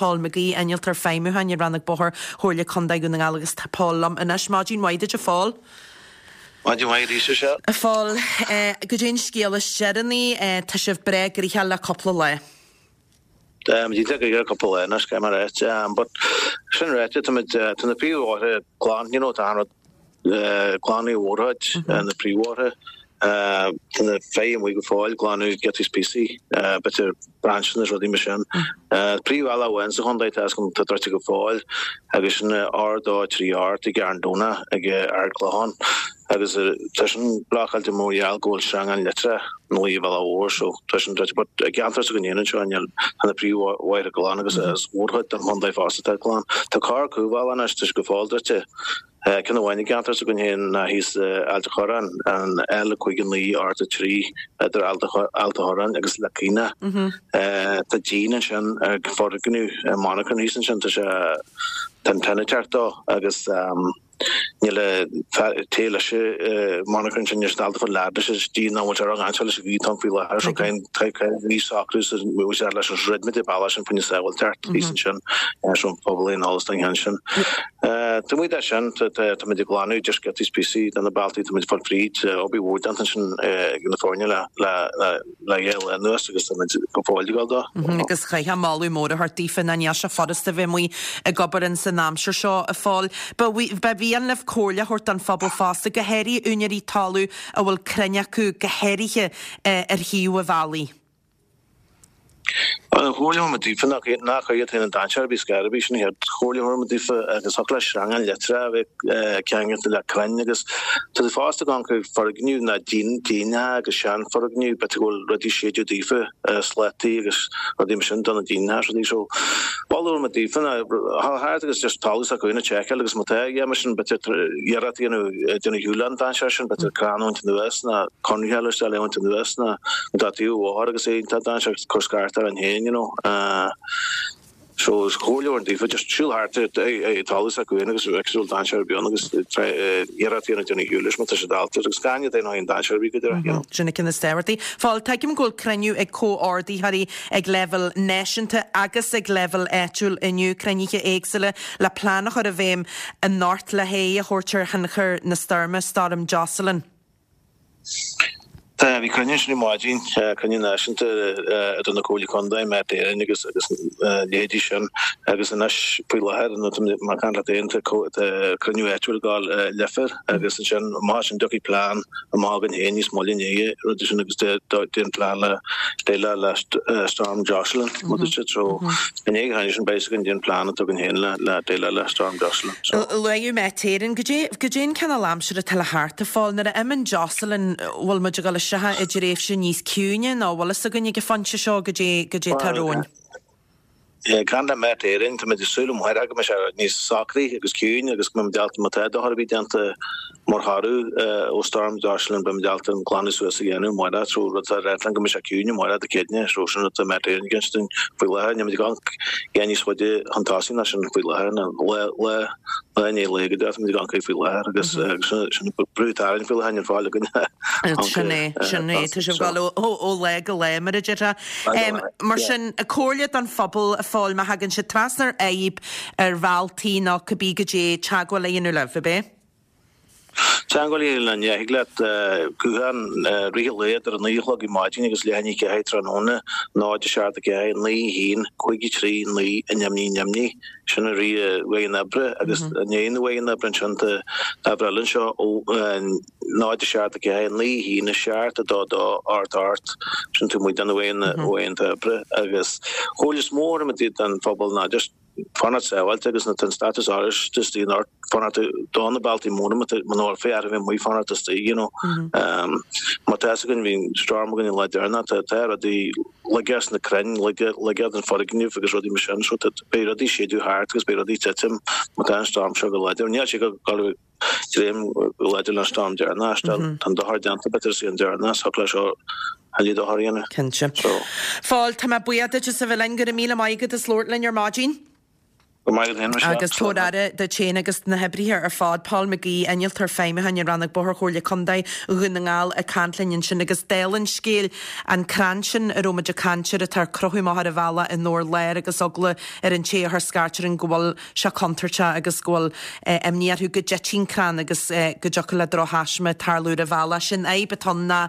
Paul McGee, Innealtóir Feidhmiúcháin i Rannóg Bóthair Chomhairle Contae Dhún na nGall agus tá Paul liom anois. Maidin mhaith duit a Phóil. Maidin mhaith arís a Mhichelle. A Phóil, goidé an scéal is deireanaí, tá sibh breá gnoitheach le cúpla lá. Táimid iontach gnoitheach le cúpla lá anois, caithfidh mé a ráit. But sin ráite, táimid, tá na príomhbhóithre glan, you know, tá an rud glan i mórchuid, na príomhbhóithre. Tá na feithimh amuigh go fóill, glanadh giotaí is píosaí, b'fhéidir brainseanna is rudaí mar sin. Príomhbhealach amháin sa chontae tá atá druidte go fóill agus sin R2 3 8 i gCarn Domhnach ag Ard Clochán agus tá sin blocáilte mar gheall go bhfuil sreangán leictreach ina luí ar an bhealach mhór so tá sin druidte but i gceantar s'againn féin anseo níl tá na príomhbhóithre glan agus is mórchuid den chontae fosta atá glan. Tá corr cúlbhealach anois tá sé go fóill druidte. Ceann amháin i gceantar s'againn féin ná thíos i Ailt a' Chorráin, an L59 8 3 idir Ailt a' Chorráin agus Leic Caonach. Tá díon ansin ag foirgneamh monarchan thíos ansin, tá sé, tá an tine ag teacht dó agus níl an té leis an monarchan sin, níl siad ábalta fáil lead leis an díon ná bhfuil sé ró-dhainséarach leis an ghaoth atá ann faoi láthair so caithfidh an socrú sa bhfuil sé leis an throid muid ag bealach sin faoina sábháilteacht thíos ansin so an pobal aon eolas don cheann sin. Taobh amuigh de sin, táimid ag glanadh just giotaí is píosaí de na bealtaí, táimid ag fáil fríd, obair mhór déanta ansin ag na foirne le le dhá lá anuas agus táimid go fóill ag dul dó. Agus chaithfeá moladh mór a thabhairt daofa ná níl sé furasta bheith amuigh ag obair ins an aimsir seo, a Phóil. Ba mhian libh comhairle a thabhairt don phobal fosta, go háirithe úinéirí talaimh a bhfuil crainn acu, go háirithe ar thaobh an bhealaigh. An chomhairle a thabharfaidh muid daofa ná ná cuir iad féin i ndainséar ar bith scor ar bith, sin an chéad chomhairle a thabharfaidh muid daofa agus thiocfadh le sreangán leictreach a bheith ceangailte le crainn agus tá siad fosta ag amharc ar foirgnimh ná díonach agus seanfhoirgnimh b'fhéidir go bhfuil rudaí séideadh daofa, slataí agus rudaí mar sin do na díonach is rudaí so moladh a thabharfaidh muid daofa ná dhul thart agus just talamh s'acu féin a tseiceáil agus má tá a dhath mar sin b'fhéidir iarracht a dhéanamh déanamh ar shiúl an dainséar sin b'fhéidir crann a bhaint anuas ná conraithe eile isteach le bhaint anuas ná tá taobh an bhóthair agus é iontach dainséarach cur scairt orainn féin you know so is comhairle a thabharfainn daofa just siúl thart ar talamh s'acu féin agus bheadh siúl dainséar ar bith ann agus iarracht a dhéanamh déanamh ar shiúl leis má tá sé dallta agus gan iad aon dainséar ar bith go deireadh you know. Sin an ceann is tábhachtaí. Phóil, tuigim go bhfuil cruinniú ag comhordaitheoirí ag leibhéal náisiúnta agus ag leibhéal áitiúil inniu, cruinnithe éagsúla le plean a chur i bhfeidhm anocht le haghaidh a thabhairt ar thionchar na stoirme, Stoirm Jocelyn. Tá, bhí cruinniú ansin ar maidin, cruinniú náisiúnta idir na Comhairlí Contae, Met Éireann agus agus a leithéidí sin agus anois faoi láthair nó tá mé ag caint leat féin tá cruinniú áitiúil ag dul i Leifear agus ansin amach as sin tiocfaidh plean amach againn féin níos moille inné rudaí sin agus déan plean le déileáil le Storm Jocelyn rud is so i ndiaidh an chruinniú sin beidh againn déan plean atá againn féin le déileáil le Storm Jocelyn. So. Luaigh Met Éireann, goidé, goidé an cineál aimsire atá le theacht a Phóil. Nuair a imíonn Jocelyn, bhfuil muid ag dul isteach i dtréimhse níos ciúine nó bhfuil fhios againn ag an phointe seo goidé, goidé atá romhainn? Ag caint le Met Éireann, táimid ag súil amárach go mbeidh sé níos socraí agus ciúin agus go mbeidh muid ábalta, má tá dochar ar bith déanta mar thoradh ó Storm Jocelyn, beidh muid ábalta an glanadh suas a dhéanamh amárach. So rud atá ag ráit linn go mbeidh sé ciúin amárach Dé Céadaoine, so sin rud atá Met Éireann ag insint dúinn faoi láthair. Níl muid ag amharc a dhath níos faide chun tosaigh ná sin faoi láthair, ná lá, lá, lá i ndiaidh lae go deo, táimid ag amharc faoi láthair agus sin brú atá orainn faoi láthair, níl fáil againn. Sin é, sin é, tá sibh ag dul ó lá go lá mar a déarfá. Mar sin, comhairle don phobal a Phóil, má thagann siad trasna ar fhadhb ar bhealtaí nó cibé goidé, teagmháil a dhéanamh libh, ab é? Teagmháil a dhéanamh linn, yeah, thig leat guthán i rith an lae idir 9 a chlog ar maidin agus leath i ndiaidh 4 tráthnóna, 0 7 4 9 1 5 3 9 0 0 0. Sin i rith uaireanta oibre agus i ndiaidh na uaireanta oibre ansin tá uimhir eile anseo ó 0 7 4 9 1 7 2 2 8 8 sin taobh amuigh de na uaireanta oibre agus chomhairle is mó a thabharfaidh muid don phobal ná just fanacht sábháilte agus nuair atá an stádas oráiste istigh anocht fanacht do na bealtaí móra muna bhfuil féith a bheith amuigh fanacht istigh you know. Mar tá fhios againn bhí storm againn an lá deireanach tá tá rudaí laige as na crainn laige laige den foirgneamh agus rudaí mar sin so tá beidh rudaí séideadh thart agus beidh rudaí titim má tá an storm seo go láidir. Níl sé go go dréim go láidir leis an storm deireanach tá an dochar déanta b'fhéidir is í an deireanach so leis seo a lí dochar a dhéanamh. Cinnte. So. Phóil, tá mé buíoch duit as a bheith linn. Go raibh míle maith agat as labhairt linn ar maidin. Go maith agat féin, Michelle. Agus tabhair aire duit féin agus na hoibrithe ar fad. Paul McGee, Innealtóir Feidhmiúcháin i Rannóg Bóthair Chomhairle Contae Dhún na nGall ag caint linn ansin agus dála an scéil, an crann sin a raibh muid ag caint air atá ag crochadh amach ar an bhealach i nDobhar Láir agus eagla ar an té a chuir scairt orainn go bhfuil sé contúirteach agus go bhfuil imní orthu go dtitfidh an crann agus go dtiocfadh le drochthaisme tarlú ar an bhealach. Sin fhadhb atá ann ná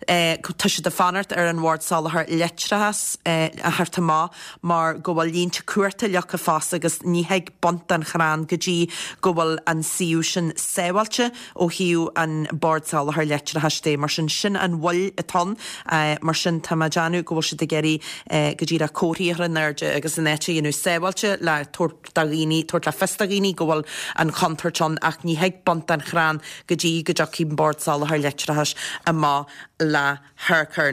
tá siad ag fanacht ar an Bhord Soláthair Leictreachais a theacht amach mar go bhfuil línte cumhachta leagtha fosta agus ní thig baint den chrann go dtí go bhfuil an suíomh sin sábháilte ó thaobh an Bord Soláthair Leictreachais de. Mar sin, sin an mhoill atá ann. Mar sin, tá mé ag déanamh go bhfuil siad ag iarraidh go díreach comharthaí a chur in airde agus an áit a dhéanamh sábháilte le tabhairt do dhaoine, tabhairt le fios do dhaoine go bhfuil an chontúirt ann ach ní thig baint den chrann go dtí go dtiocfaidh an Bord Soláthair Leictreachais amach le hurchar.